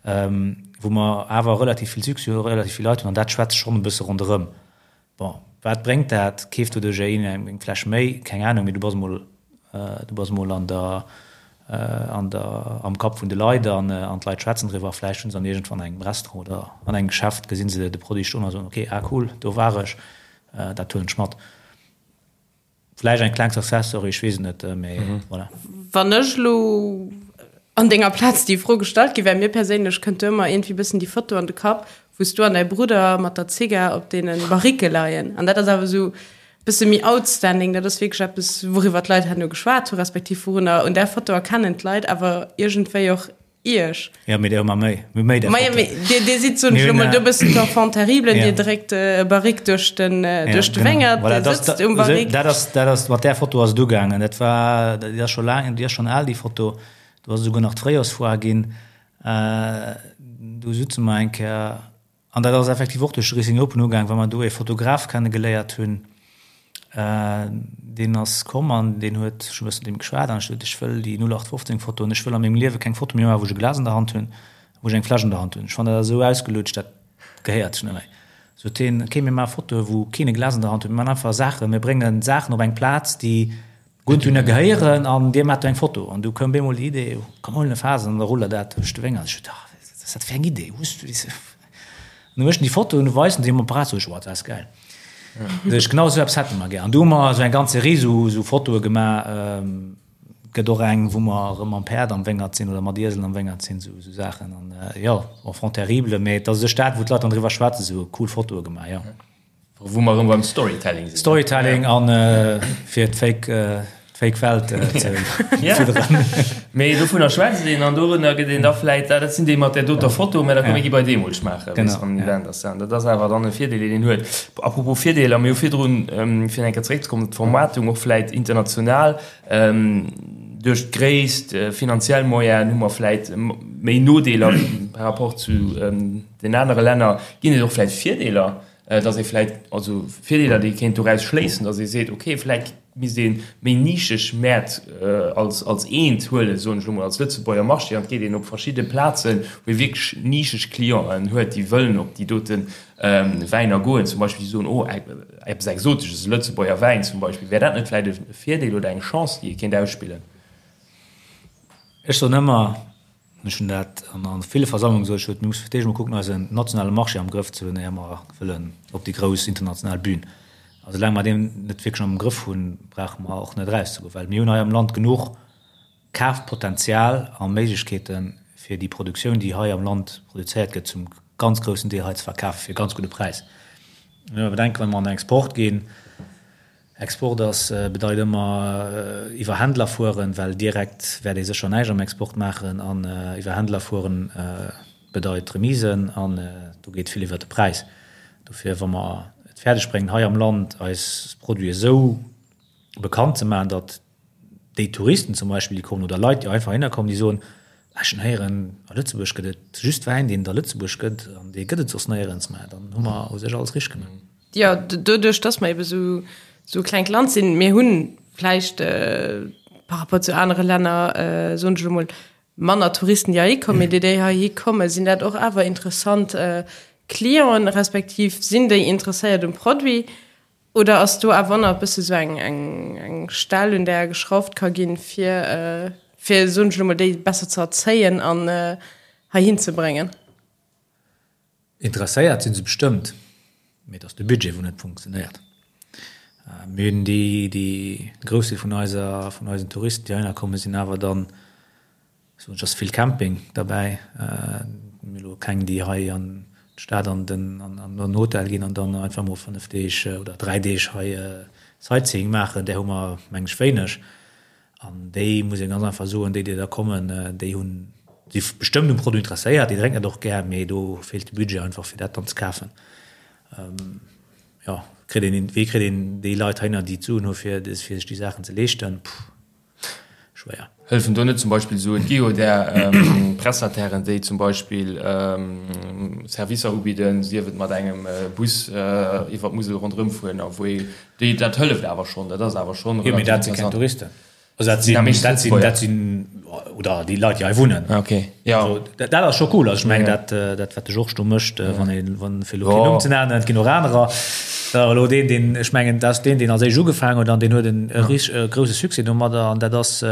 wou mer awer relativ vill Succès hu relativ vill Leit hunn an dat schwätzt schonn e bësse ronderëm. Bon, wat bréngt dat? Keeft doduerch een eng Fläsch méi? Keng Anung, mee du bass emol, du bass emol an der, an der, am Kapp vun de Leit an an d'Leit schwätzen driwwer. Vläicht hunn se dann iergendwann an engem Restaurant oder an engem Geschäft gesinn se de Produit stoen a soen, okay, ah cool, do war ech, dat huelen ech mat. Vläicht eng kleng Success Story, ech weess et net, mee voilà. Wann ech elo an denger Plaz déi Fro gestallt gi wär, mir perséinlech kënnt do ëmmer iergendwéi bëssen déi Foto an de Kapp, wou s du an däi Brudder mat der Zigar op deene Barriquë leien. An dat ass awer esou bësse méi outstanding, dat ass wierklech eppes, wouriwwer d'Leit herno geschwat hu respektiv wourunner un där Foto erkennen d'Leit awer iergendwéi och Iech. Ja, mee der hu mer méi. Mir hu méi där Fotoen. Majo, mee dir, dir sidd, soen ech elo mol, do e bëssen d'Enfant terrible, dir dréckt e Barrique duerch den, duerch de Wéngert, Voilà, dir dat, sëtzt um Barrique. dat ass, dat ass, mat där Foto ass et ugaangen. Dat war, déi ass scho laang, déi ass schonn al, déi Foto. Do ass esouguer nach d'Fréijorsfoire ginn. Do sutze mer eng Kéier An dat ass effektiv och duerch de Racing Open ugaang, well mer do ee Fotograf kenne geléiert hunn, deen ass komm an deen huet, ech hu e bëssen mat deem geschwat an ech sot, ech wëll déi 0815 Foto an ech wëll a mengem Liewe keng Foto méi maachen, wou ech e Glas an der Hand hunn, wou ech eng Fläsch an der Hand hunn. Ech fannen dat esou ausgelutscht, dat gehéiert sech net méi. Sot hien, ok, mir maache Fotoe wou keen e Glas an der Hand huet, mir maachen einfach Saachen, mir bréngen Saachen op eng Plaz, déi Gutt dunner gehéieren an dir maacht do eng Foto. An du koum bemol déi Idee, komm huelen e Faass an da ruller dat duerch de Wéngert. Ech sot, ah, wat ass dat fir eng Idee, hues du déi? An du méchten déi Foto an du weisen déi um Apparat, sot ech, oh, dat ass gäil. Sot ech, genau esou eppes hätte mer gär. An du hu mer esou eng ganz Serie esou, esou Fotoe gemaach. Gëtt och eng, wou mer erëm mam Päerd am Wéngert sinn oder mat Ieselen am Wéngert sinn, esou, esou Saachen. An jo, Enfant terrible, mee et ass u sech dat, wou d'Leit dann driwwer schwätzen, esou cool Fotoe gemaach, jo. Wou mer erëm beim Storytelling sinn. Storytelling an fir d'Fake, d'Fake Welt ze fidderen. Mee dovunner schwätzt een an dorunner gëtt een da vläit, ah dat sinn déi mat där doter Foto, mä da komm mir gi bei deemol schmaachen, wéi se am Event ass. An dat ass awer dann e Virdeel, deen een huet. Apropos Virdeeler, mir hu virdrun, fir eng Kéier zeréckzekommen op d'Vermaartung, och vläit international, duerch d'Gréisst, finanziell Moyenen hu mer vläit méi Nodeeler par rapport zu den anere Länner. Ginn et och vläit Virdeeler? dass ee vläit, also Virdeeler, déi ee kéint doraus schléissen, dass ee seet, okay, vläit misst ee méi nischeg Mäert als, als eent huelen, soen ech elo mol, als Lëtzebuerger Marché, an et geet een op verschidde Plazen, wou ee wierklech nischeg Clienten huet, déi wëllen op déi dote Wäiner goen, zum Beispill, déi soen, oh, eppes Exotesches, e Lëtzebuerger Wäin zum Beispill. Wär dat net vläit e Virdeel oder eng Chance, déi ee kéint ausspillen? Ech soen ëmmer, Ech hunn dat an ville Versammlungen gesot, ech huet, mir musse fir d'éischt emol kucken, eisen nationale Marché am Grëff ze hunn, éier mer wëllen op déi grouss international Bühn. A soulaang mer deen net wierklech am Grëff hunn, brauche mer och net erauszegoen, well mir hunn hei am Land genuch Kafpotenzial a Méiglechkeeten, fir déi Produktioun, déi hei am Land produzéiert gëtt, zum ganz groussen Deel hei ze verkafen, fir e ganz gudde Präis. Mä bedenken, wa mer an den Export ginn, Export ass, bedeit ëmmer iwwer Händler fueren, well direkt wäert ee sécher näischt am Export maachen. An iwwer Händler fueren bedeit Remisen an do geet vill iwwer de Präis. Dofir, wa mer et fäerdeg bréngen, hei am Land eis Produiten esou bekannt ze maachen, datt déi Touristen zum Beispill, déi kommen, oder Leit, déi einfach heihinner kommen, déi soen, Ech hunn héieren, a Lëtzebuerg gëtt et just Wäin, deen et a Lëtzebuerg gëtt, an dee gëtt et soss néierens, mä dann hu mer u sech alles richteg gemaach. Jo, doduerch, dass mer ebe sou e klengt Land sinn, mir hu vläicht par rapport zu anere Länner, soen ech elo mol, manner Touristen, déi heihi kommen, mee déi, déi heihi kommen, sinn dat och awer interessant Clienten, respektiv sinn déi interesséiert um Produit? Oder ass do awer nach e bësse sou eng, eng, eng Stell, un där geschrauft ka ginn, fir, fir, soen ech elo mol, déi besser ze erzéien an heihin ze bréngen? Interesséiert si se bestëmmt, mee et ass de Budget, wou net funktionéiert. Mir hunn déi, déi, de Groussdeel vun eiser, vun eisen Touristen, déi heihinner kommen, sinn awer dann, Soen ech, ass vill Camping derbäi. Mir elo keng déi hei an d'Stad an den an den Hotel ginn an dann einfach mol 5 Deeg oder 3 Deeg hei Sightseeing maachen. Där hu mer meng ech wéineg. An déi muss ee ganz einfach soen, déi déi da kommen, déi hunn si bestëmmt um Produit interesséiert, déi drénken dat och gär, mee do feelt de Budget einfach fir dat dann ze kafen. Jo, kritt een, wéi kritt een déi Leit heihinner déi d'Suen hu fir fir sech déi Saachen ze leeschten? Puh. Schwéier. Hëllefen do net zum Beispill esou, et gi jo där Prestatairen, déi zum Beispill Servicer ubidden, sief et mat engem Bus iwwer d'Musel ronderëm fueren a wou ee, déi, dat hëlleft awer schonn, dat ass awer schonn Jo, mee dat si keng Touristen. Also dat sinn, dat sinn, dat sinn, oder déi Leit, déi hei wunnen. Ok, jo. Also dat ass scho cool. Also ech mengen, dat, dat wat de Georges do mécht, wann ee, wann, fir elo keen Numm ze nennen, et ginn och anerer, Dat ass elo deen, deen, ech mengen, dat ass deen, deen als éischt ugefaangen huet an deen huet en e grouse Succès domadder an dat ass,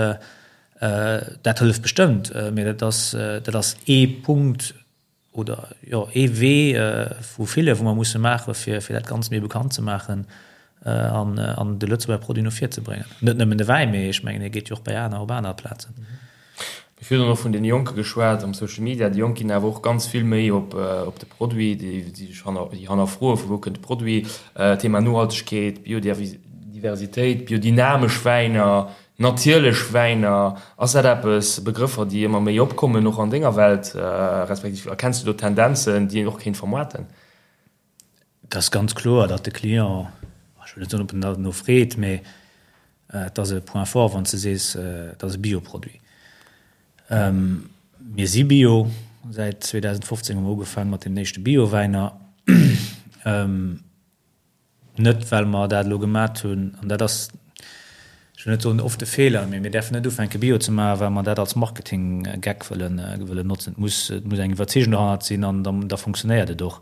dat hëlleft bestëmmt. Mee dat ass, dat ass ee Punkt oder, jo, ee Wee vu ville, wou mer musse maachen, fir, fir dat Ganzt méi bekannt ze maachen. an an de Lëtzebuerger Produit no vir ze bréngen. Net nëmmen de Wäin, mee ech mengen, hie geet jo och bei aner, op aner Plazen. Mir hu virun och vun deene Jonke geschwat am Social Media. Déi Jonk ginn awer och ganz vill méi op op de Produit, déi sech hanner, déi hannerfroe vu wou kënnt de Produit. Thema Nohaltegkeet, Biodiversitéit, biodynamesch Wäiner, natierlech Wäiner. Ass dat eppes, Begrëffer, déi ëmmer méi opkommen och an denger Welt, respektiv erkenns du do Tendenzen, déi een och kéint vermoarten? Et ass ganz kloer, datt de Client, ech wëll net soen, ob en derno freet, mee et ass e Point fort, wann s de sees, et ass e Bioproduit. Mir si Bio, säit 2015 hu mer ugefaange mat deenen éischte Biowäiner. Net well mer dat elo gemat hunn, an dat ass, ech wëll net soen oft e Feeler, mee mir däerfen net ufänke Bio ze maachen, well mer dat als Marketinggeck wëllen, wëllen notzen. Et muss, et muss eng Iwwerzeegung dohannert sinn an da, da funktionéiert et och.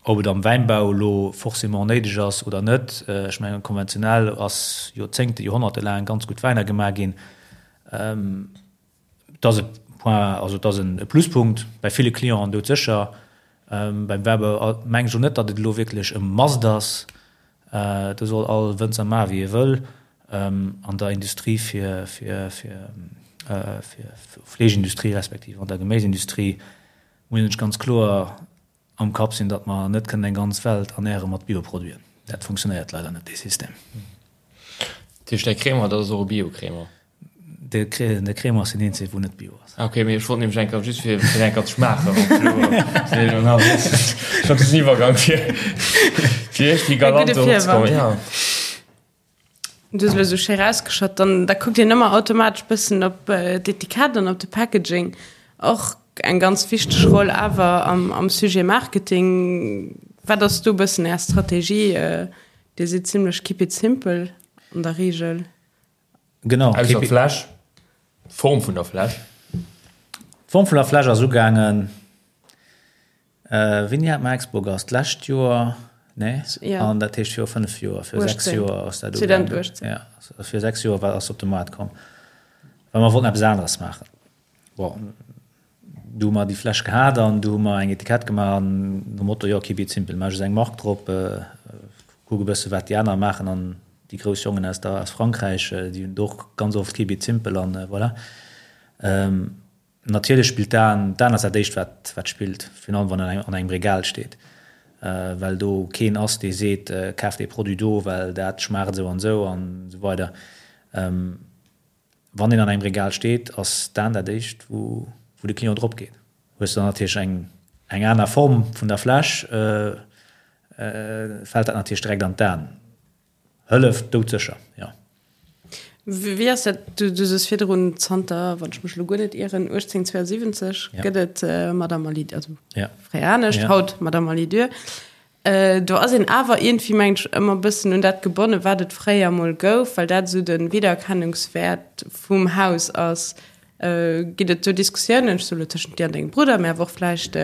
Ob et am Wäinbau elo forcément néideg ass oder net, ech mengen konventionell ass Joerzéngte, Joerhonnerte laang ganz gutt Wäiner gemaach ginn. Et ass e Point, also et ass e Pluspunkt bei ville Clienten doudsécher. Beim Wäibau mengen ech och net, datt et elo wierklech e Must ass. Do soll all Wënzer maache wéi e wëll. An der Industrie fir, fir, fir, fir Fleeschindustrie respektiv an der Geméisindustrie muss een sech ganz kloer am Kapp sinn, datt mer net kënnen eng ganz Welt ernäre mat Bioproduiten. Dat funktionéiert leider net, dee System. Dat heescht, däi Crémant, dat ass och e Bio-Crémant? De Crémant ass deen eenzege wou net bio ass. Ah ok, mee ech wollt nämlech eng Kéier just fir fir eng Kéier ze schmaachen, ob elo ech hat den Iwwergang fir fir iergendwéi galant do opzekommen, ja. Du hues elo esou schéi rausgeschott, dann da kuckt een ëmmer automatesch bëssen op d'Etikett an op de Packaging. Och eng ganz wichteg Roll awer am am Sujet Marketing. Wat ass do bëssen Är Strategie? Dir sidd zimlech keep it simple an der Reegel. Genau. Ausser d'Fläsch, d'Form vun der Fläsch. D'Form vun der Fläsch ass ugaangen, wéini hat mer Expogas? D'lescht Joer? Nee? Ja. An dat heescht viru 5 Joer, viru 6 Joer ass dat ugaangen. 2018. Ja, viru 6 Joer war, ass op de Maart komm. Well mer wollten eppes aneres maachen. Bon, du hu mer déi Fläsch gehat an du hu mer eng Etikett gemaach an nom Motto, jo, keep it simple, maach just eng Mark drop, kuck e bësse wat déi aner maachen an déi grouss Jongen aus der, aus Frankräich, déi hunn et och ganz oft keep it simple an voilà. Natierlech spillt d'Aen, d'Aen ass dat éischt wat, wat spillt, virun allem wann en an engem Regal steet, well do keen ass dee seet, kaf dee Produit do, well dat schmaacht esou an esou an esou weider. Wann een an engem Regal steet, ass d'Aen dat éischt, wou de Client drop geet. Hues de dann natierlech eng eng aner Form vun der Fläsch, fält dat natierlech direkt an d'Aen. Hëlleft doudsécher, jo. Wéi ass dat, du soos virdrun, zanter, wann ech mech elo guer net ieren, 1872 gëtt et Madame Alidor, also fréier anescht, haut Madame Alidor. Do ass een awer iergendwéi, mengen ech, ëmmer e bëssen un dat gebonnen, wat et fréier emol gouf, well dat esou de Wiedererkennungswäert vum Haus ass. Ginn et do Diskussiounen, ech soe lo tëschent dir an dengem Brudder, mä awer och vläicht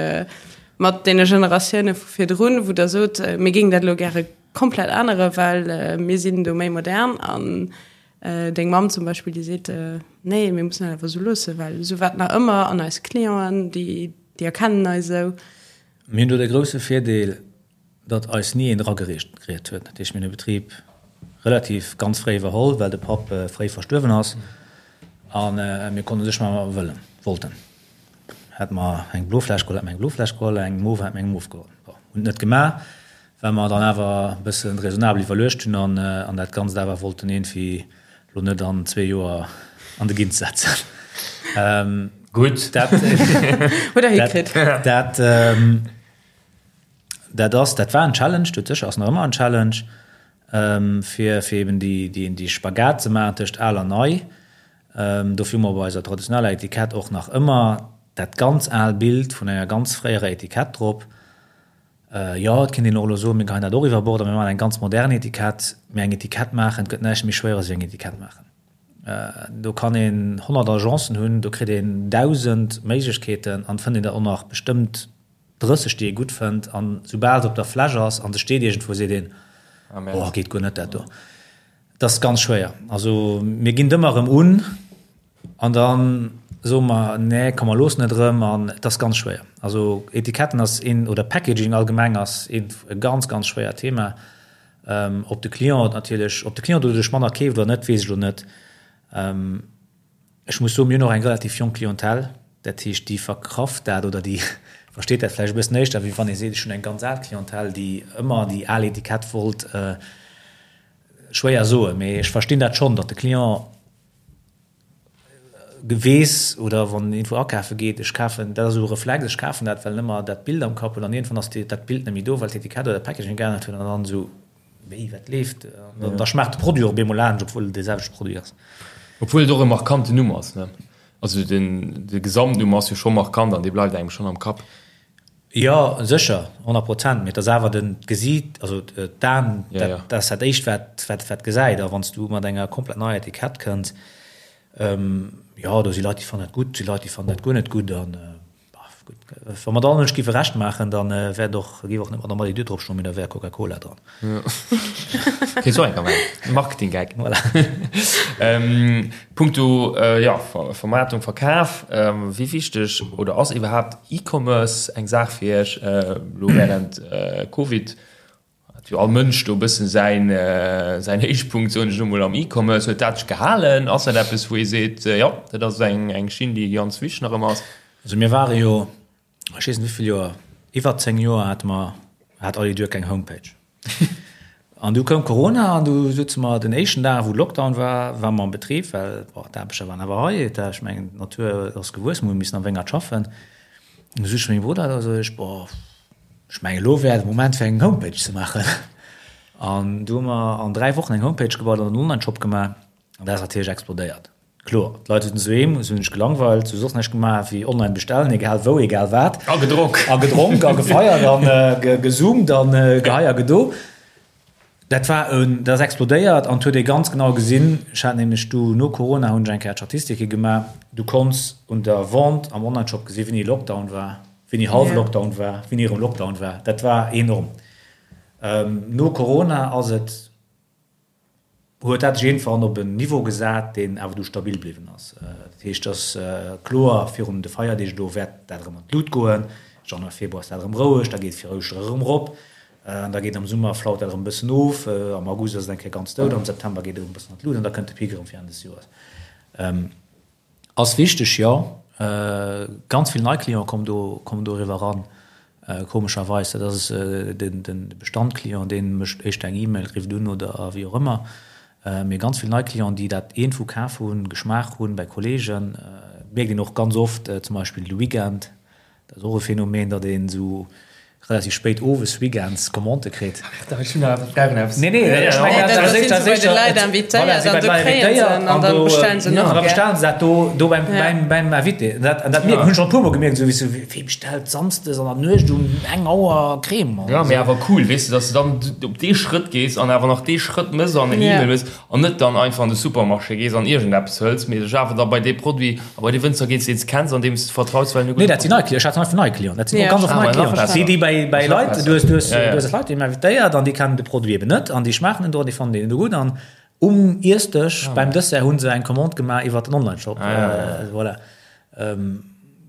mat deene Generatioune vu virdrun, wou Der sot, mir géingen dat elo gäre komplett änneren, well mir sinn do méi modern an deng Mamm zum Beispill, déi seet, nee, mir mussen dat awer esou loossen, well esou war et nach ëmmer an eis Clienten, déi erkennen eis esou. Mir hunn do de grousse Virdeel, datt eis ni een dragereet huet. Dat heescht, mir hunn de Betrib relativ ganz fréi iwwerholl, well de Papp fréi verstuerwen ass a mir konnten u sech maachen, wat mer wëllen, wollten. Hätte mer eng blo Fläsch geholl, hätte mer eng blo Fläsch geholl, eng mauve, hätte mer eng mauve geholl. Bon, hunn et net gemaach, well mer dann awer e bësse raisonnabel iwwerluecht hunn an dat Ganzt awer wollten iergendwéi Lo net an zwee Joer an de Gint setzen. Gutt. Dat, Huet der hikritt. dat, dat ass, dat war en Challenge, dout sécher, ass nach ëmmer en Challenge, fir, fir eben déi, déi, déi Spagat ze maachen tëscht al an nei. Dofir hu mer bei eiser traditioneller Etikett och nach ëmmer dat ganz al Bild vun enger ganz fréierer Etikett drop. Jo, et kéint een och elo soen, mir geheien dat och iwwer Bord a mir maachen eng ganz modern Etikett. Mee eng Etikett maachen, et gëtt näischt méi schwéieres wéi eng Etikett maachen. Do kann een 100 Agencen hunn, do kritt een 1.000 Méiglechkeeten an et fënnt een der och nach bestëmmt 30, déi ee gutt fënnt. An soubal se op der Fläsch ass an se steet iergendwou, seet een, Oh, geet guer net dat do. Et ass ganz schwéier. Also mir ginn et ëmmer erëm un. An da soe mer, nee, komm mer loossen et erëm. An et ass ganz schwéier. Also Etiketten ass een, oder Packaging allgemeng ass een e ganz, ganz schwéiert Thema. Ob de Client natierlech, ob de Client doduerch manner keeft oder net, weess ech elo net. Ech muss soen, mir hunn och eng relativ jonk Clientèle, dat heescht, déi verkraft dat oder déi versteet dat vläicht e bëssen éischter, wéi wann ee seet, ech hunn eng ganz al Clientèle, déi ëmmer déi al Etikett wollt. Schwéier soen, mee ech verstinn dat schonn, datt de Client weess oder wann en iergendwou akafe geet, ech kafen, dat ass esou e Reflex, ech kafen dat, well en ëmmer dat Bild am Kapp huet an iergendwann ass dat Bild net méi do, well d'Etikett oder de Packaging geännert huet an dann esou, wéi, wat leeft? An da schmaacht de Produit och op eemol anescht, obwuel et dee selwechte Produit ass. Obwuel et och e markanten Numm ass, ne? Also den, de Gesamtnumm ass jo scho markant an dee bleift engem schonn am Kapp. Jo, sécher, 100 Prozent, mee et ass awer den d'Gesiit, also d'Aen, dat ass dat éischt wat wat gesäit. A wann s du mat enger komplett neier Etikett kënns, jo, do si Leit déi fannen dat gutt, si Leit déi fannen dat guer net gutt an gutt, wa mer et allen Mënsch géife Recht maachen, da wäert och, géif och net Madame Allidur drop stoen, mee da wär Coca-Cola dran. Kéint och enker maachen. Marketing-Gag. Voilà. Punkto, jo, Vermaartung, Verkaf, wéi wichteg oder ass iwwerhaapt E-Commerce eng Saach fir Iech? Elo wärend Covid hat jo all Mënsch do e bëssen säin, säin Héichpunkt, soen ech elo mol, am E-Commerce. Huet dat sech gehalen? Ass dat eppes, wou ee seet, jo, dat ass eng, eng Schinn, déi ganz wichteg nach ëmmer ass? Also mir ware jo ech weess net wéivill Joer, iwwer 10 Joer hate mer, hat Allidur keng Homepage. An du koum Corona an du sutze mer den éischten Dag, wou Lockdown war, ware mer am Betrib, well bon, d'Aarbechter waren awer hei, et ech mengen d'Natur ass gewuess, mir hu missen am Wéngert schaffen. Du sot ech zu mengem Brudder, da sot ech, boah, ech mengen elo wär de Moment fir eng Homepage ze maachen. An du hu mer an 3 Wochen eng Homepage gebaut an en Onlineshop gemaach an dat ass natierlech explodéiert. Kloer, d'Leit sinn doheem, se hunn sech gelangweilt, se hu soss näischt gemaach wéi online bestellen, egal wou, egal wat. A gedronk. A gedronk a gefeiert an gezoomt an gehei a gedo. Dat war en, dat ass explodéiert an et huet ee ganz genau gesinn, ech hat nämlech du no Corona hunn ech eng Kéier d'Statistike gemaach, du konns un der Vente am Onlineshop gesinn, wéini Lockdown war, wéini hallwe Lockdown war, wéini erëm Lockdown war. Dat war enorm. No Corona ass et. huet dat sech iergendwann op en Niveau gesat, deen awer du stabil bliwwen ass. Dat heescht, et ass kloer, virun de Feierdeeg elo wäert dat erëm an d'Lut goen, Januar, Februar ass dat erëm roueg, da geet et fir Ouschtere erëm erop an da geet am Summer, flaut dat erëm e bëssen of, am August ass et eng Kéier ganz dout, am September geet et erëm e bëssen an d'Lut an da kënnt de Pic erëm fir Enn des Joers. Ass wichteg, jo. Ganz vill nei Clienten kommen do, kommen doriwwer eran, komescherweis. Dat ass de Bestand-Client, dee mécht éischter eng E-Mail, rifft un oder wéi och ëmmer. Mee ganz vill nei Clienten, déi dat iergendwou kaf hunn, geschmaacht hunn bei Kolleegen, mierkt een och ganz oft, zum Beispill de Weekend, Dat ass och e Phänomen, datt een esou relativ spéit owes weekends Commandë kritt. Nee, nee, ech mengen, dat ass éischter, bei de Leit invitéiert an do kréien se en an da bestellen se nach. An da bestellen se dat do, do beim, beim, beim Invité. Dat, an dat mierken, hunn ech schonn e puermol gemierkt, esou wéi s du, wee bestellt samsdes an der Nuecht um eng Auer Crème? Jo, mee awer cool, weess de, datt s de dann op dee Schrëtt gees an awer nach dee Schrëtt mëss an eng E-Mail mëss. An net dann einfach an de Supermarché gees an iergendeppes hëls, mee dech awer da bei dee Produit a bei dee Wënzer gees, deen s de kenns an deem s de vertraus, well en e gudde Nee, dat sinn nei Clienten. Ech hat einfach nei Clienten. Dat sinn och ganz oft nei Clienten. Déi, déi bei, bei Leit, du hues, du hues, du hues Leit, déi hunn invitéiert an déi kennen de Produit eben net an déi schmaachen en do an déi fannen deen do gutt an um Iessdësch beim Dessert hu se eng Commande gemaach iwwer den Onlineshop. Voilà.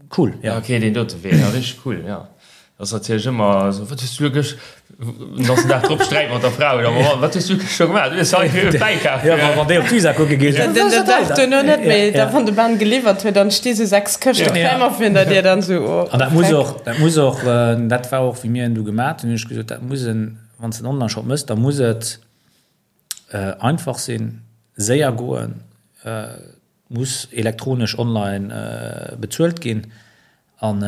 Cool, ja. Ok, deen dote Wee, ja, richteg cool, ja. Dat ass natierlech ëmmer esou, wat hues du elo gëscht, den ganzen Dag drop Sträit mat der Fra oder mam Mann, wat hues du gëscht scho gemaach, du hues hei e Wäi kaf. Ja, wann déi op d'Visa kucke geet. Den den Dag duerno net méi, da wann de Ben geliwwert huet, dann sti sou 6 Këschte Crème virun der Dier, dann sou, oh. An dat muss och, dat muss och, dat war och wéi mir en du gemaat hunn, hunn ech gesot, dat muss en, wann s de en Onlineshop mëss, da muss et einfach sinn, séier goen, muss elektronesch online bezuelt ginn an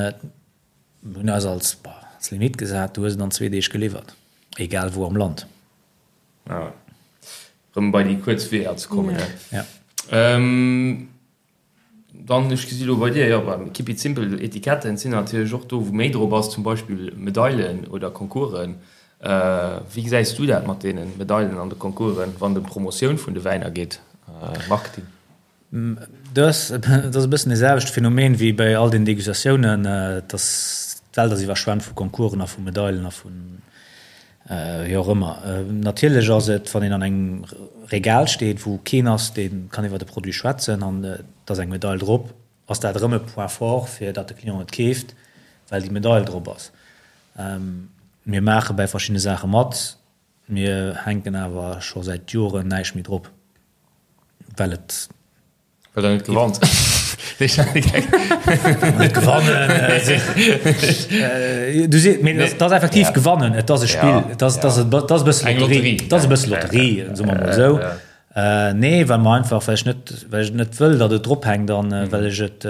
mir hunn eis als als Limit gesat, du hues et an zwee Deeg geliwwert, egal wou am Land. Ja, erëm bei déi kuerz Weeër ze kommen. Ja. Dann, ech gesi lo bei dir, jo, beim Keep it simple, Etiketten sinn natierlech och do, wou méi drop ass, zum Beispill Medailen oder Concoursen. Wéi gesäis du dat mat deene Medailen an de Concoursen, wann et ëm d'Promotioun vun de Wäiner geet, Marketing? Dat ass e bëssen dee selwechte Phänomen wéi bei all den Degustatiounen, dass d'Welt ass iwwerschwemmt vu Concoursen a vu Medailen a vu wéi och ëmmer. Natierlech ass et, wann een an engem Regal steet, wou keen ass, dee kann iwwer de Produit schwätzen an et ass eng Medail drop, ass dat erëm e Point fort, fir datt de Client et keeft, well déi Medail drop ass. Mir maache bäi verschiddene Saache mat. Mir hänken awer scho säit Joren näischt méi drop, well et. Well der net gewannt. Net gewannen. Du si, mee dat ass effektiv gewannen. Et ass e Spill, et ass, et ass, et ass e bësse Lotterie, et ass e bësse Lotterie, soe mer mol esou. Nee, well mer einfach, well ech net, well ech net wëll, datt et drophänkt an well ech et,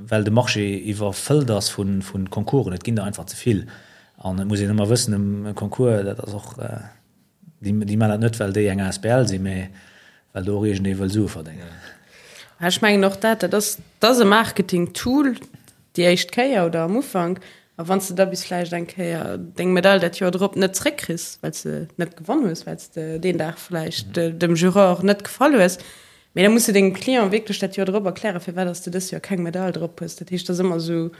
well de Marché iwwerfëllt ass vu Concoursen. Et ginn der einfach ze vill. An et muss een ëmmer wëssen, e Concours, dat ass och, déi, déi maachen dat net, well déi eng asbl sinn, mä well do och iergendee wëll Sue verdéngen. Ech mengen och dat, dat ass, dat ass e Marketing-Tool déi éischt Kéier oder am Ufank. A wann s de da bis vläicht eng Kéier deng Medail dat Joer drop net zréckkriss, well s de net gewonn hues, well s de deen Dag vläicht dem Juror net gefall hues, mee da muss de dengem Client wierklech dat Joer drop erklären, firwat dass de dëst Joer keng Medail drop hues. Dat heescht, dat ass ëmmer esou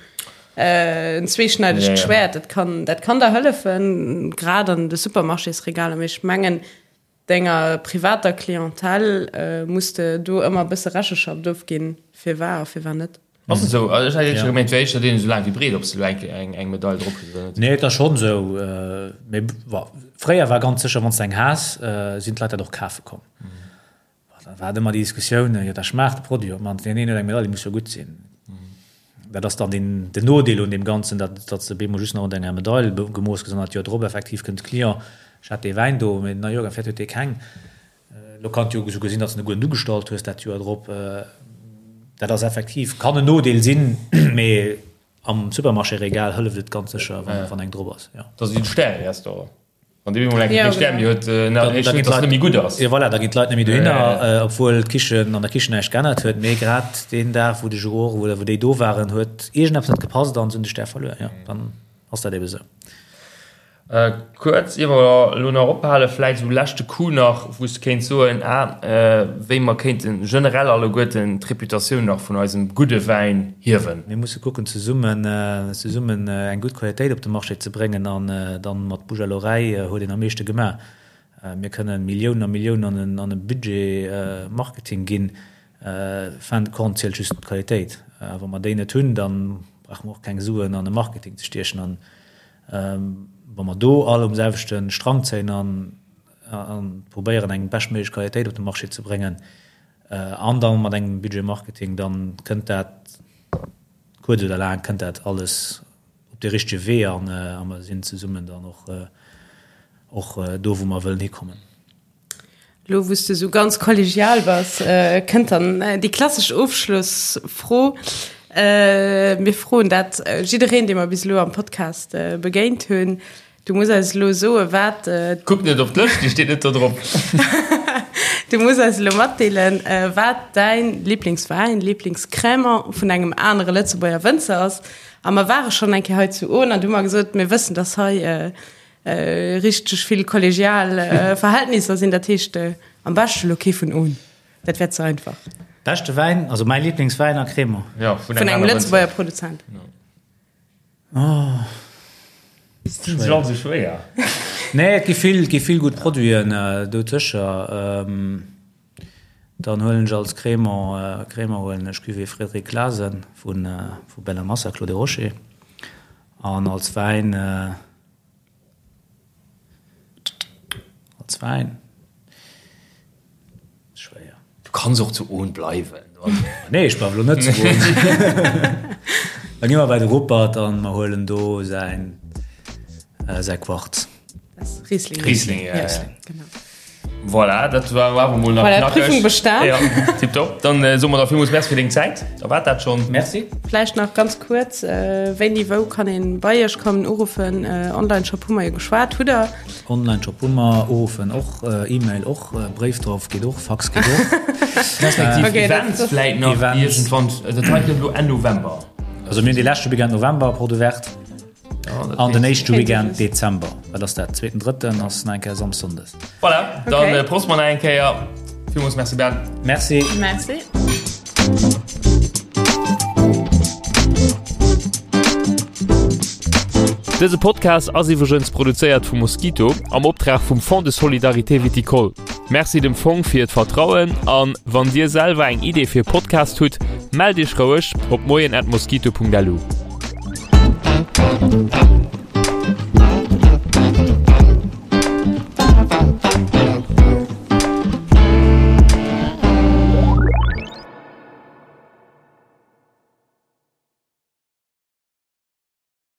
en zweeschneidegt Schwäert. Dat kann, dat kann der hëllefen, grad an de Supermarchésregaler, mee ech mengen, Denger privater Clientèle muss de do ëmmer e bësse Recheschaft ofginn, firwar a firwar net. Ass et esou? Also ech hätt éischter gemengt, et wär éischter deenen esou laang wéi breet, ob s de elo eng eng Medail drop hues oder net. Nee, et ass schonn esou. Mee bon, fréier war ganz sécher, wann s de eng has, sinn d'Leit dat och kafe komm. Da war et ëmmer déi Diskussioun, jo da schmaacht de Produit op d'mannst, deen een huet eng Medaille, déi muss jo gutt sinn. Dat ass dann den, den Nodeel un deem Ganzen, datt, datt s de op eemol just nach un denger Medail gemooss gëss an dat Joer drop effektiv kënnt de Client, ech hat dee Wäin do, mee na jo, vläicht huet dee keng. Elo kann et jo esouguer sinn, datt s de e gudden ugestallt hues dat Joer drop. Dat ass effektiv, kann en Nodeel sinn, mee am Supermarché-Regal hëlleft et ganz sécher, wann eng drop ass, jo. Dat ass wéi de Stäre-Restaurant. Wann dee mol eng Kéier kee Stär méi huet, da heescht net, dass et net méi gutt ass. Jo voilà, da ginn d'Leit net méi dohinner, obwuel d'Kichen an der Kichen näischt geännert huet. Mee grad deen Dag, wou de Juror oder wou déi do waren, huet iergendeppes net gepasst an se hunn de Stär verluer. Jo, dann ass dat ebe sou. Kuerz, ier mer elo nach ophalen, vläicht esou leschte Coup nach, wou s de kéints soen, ah, wéi mer kéinte generell alleguerten d'Reputatioun nach vun eisem gudde Wäin hiewen. Mir musse kucken zesummen zesummen eng gutt Qualitéit op de Marché ze bréngen an dann mat Bouche à l'oreille huet een am meeschte gemaach. Mir kënnen Milliounen a Milliounen an en an e Budget Marketing ginn, fin de compte zielt just d'Qualitéit. A wa mer déi net hunn, dann brauche mer och keng Suen an e Marketing ze stiechen. An wa mer do all um selwechte Strang zéien an an probéieren eng beschtméiglech Qualitéit op de Marché ze bréngen, An da mat engem Budget Marketing, da kënnt dat, kuerz oder laang, kënnt dat alles op dee richtege Wee an a mer sinn zesummen dann och och do, wou mer wëllen hikommen. Elo wou s de esou ganz kollegial bass, kënnt dann déi klassesch Ofschlossfro. Mir froen dat jiddereen, dee mer bis elo am Podcast begéint hunn. Du muss eis elo soen, wat. Kuck net op d'Lëscht, déi steet net do drop. Du muss eis elo matdeelen, wat däin Liblingswäin, Liblingscrémant vun engem anere Lëtzebuerger Wënzer ass. A mer ware schonn eng Kéier hei zu Ohn an du hu mer gesot, mir wëssen, dass hei richteg vill kollegial Verhältnisser sinn. Dat heescht, am beschte elo kee vun Ohn, dat wär ze einfach. Beschte Wäin, also mäi Liblingswäin a Crémant. Jo, vun engem Lëtzebuerger Produzent. Oh. Schwéier. Schwéier. Nee, et gi vill, et gi vill gutt Produiten äh, do sécher. Ähm, dann huelen ech als Crémant, äh, Crémant huelen ech Cuvée Frédéric Clasen vun, äh, vu Bella Massa, Clos des Rochers. An als Wäin, äh, Als Wäin. Schwéier. Du kanns och zu Ohn bleiwen. Nee, ech bleiwe lo net zu Ohn. Da gi mer bei de Rupert an mer huelen do säin, säi Quarz. Riesling. Riesling, ja, ja. Genau. Voilà, dat war awer mol nach Voilà, knackeg. Prüfung bestan. Ja, tipptopp. Dann äh, soe mer der villmools Merci fir deng Zäit. Da war dat schon. Merci. Vläicht nach ganz kuerz, äh, wéini, wou kann een bei Iech kommen, uruffen? Äh, Online-Shop hu mer jo geschwat, hutt Der? Online-Shop hu mer, uruffen och, äh, E-Mail och, äh, Bréif drauf geet och, Fax geet och. Respektiv Okay, dat- Events dat- vläit nach Events. iergendwann. Dat hei kënnt elo Enn November. Also mir hunn dee leschte Weekend November Porte Ouverte. An den éischte Weekend Dezember, wat ass dat, zweeten, drëtten ass nach eng Kéier Samsondes. Voilà, dann okay. Prost mer nach eng Kéier. Villmools Merci Ben. Merci. Merci. Dëse Podcast ass iwwregens produzéiert vu Mosquito am Optrag vum Fonds de Solidarité Viticole. Merci dem Fong fir d'Vertrauen an wann Dir selwer eng Idee fir e Podcast hutt, mellt Iech roueg op moien@mosquito.lu.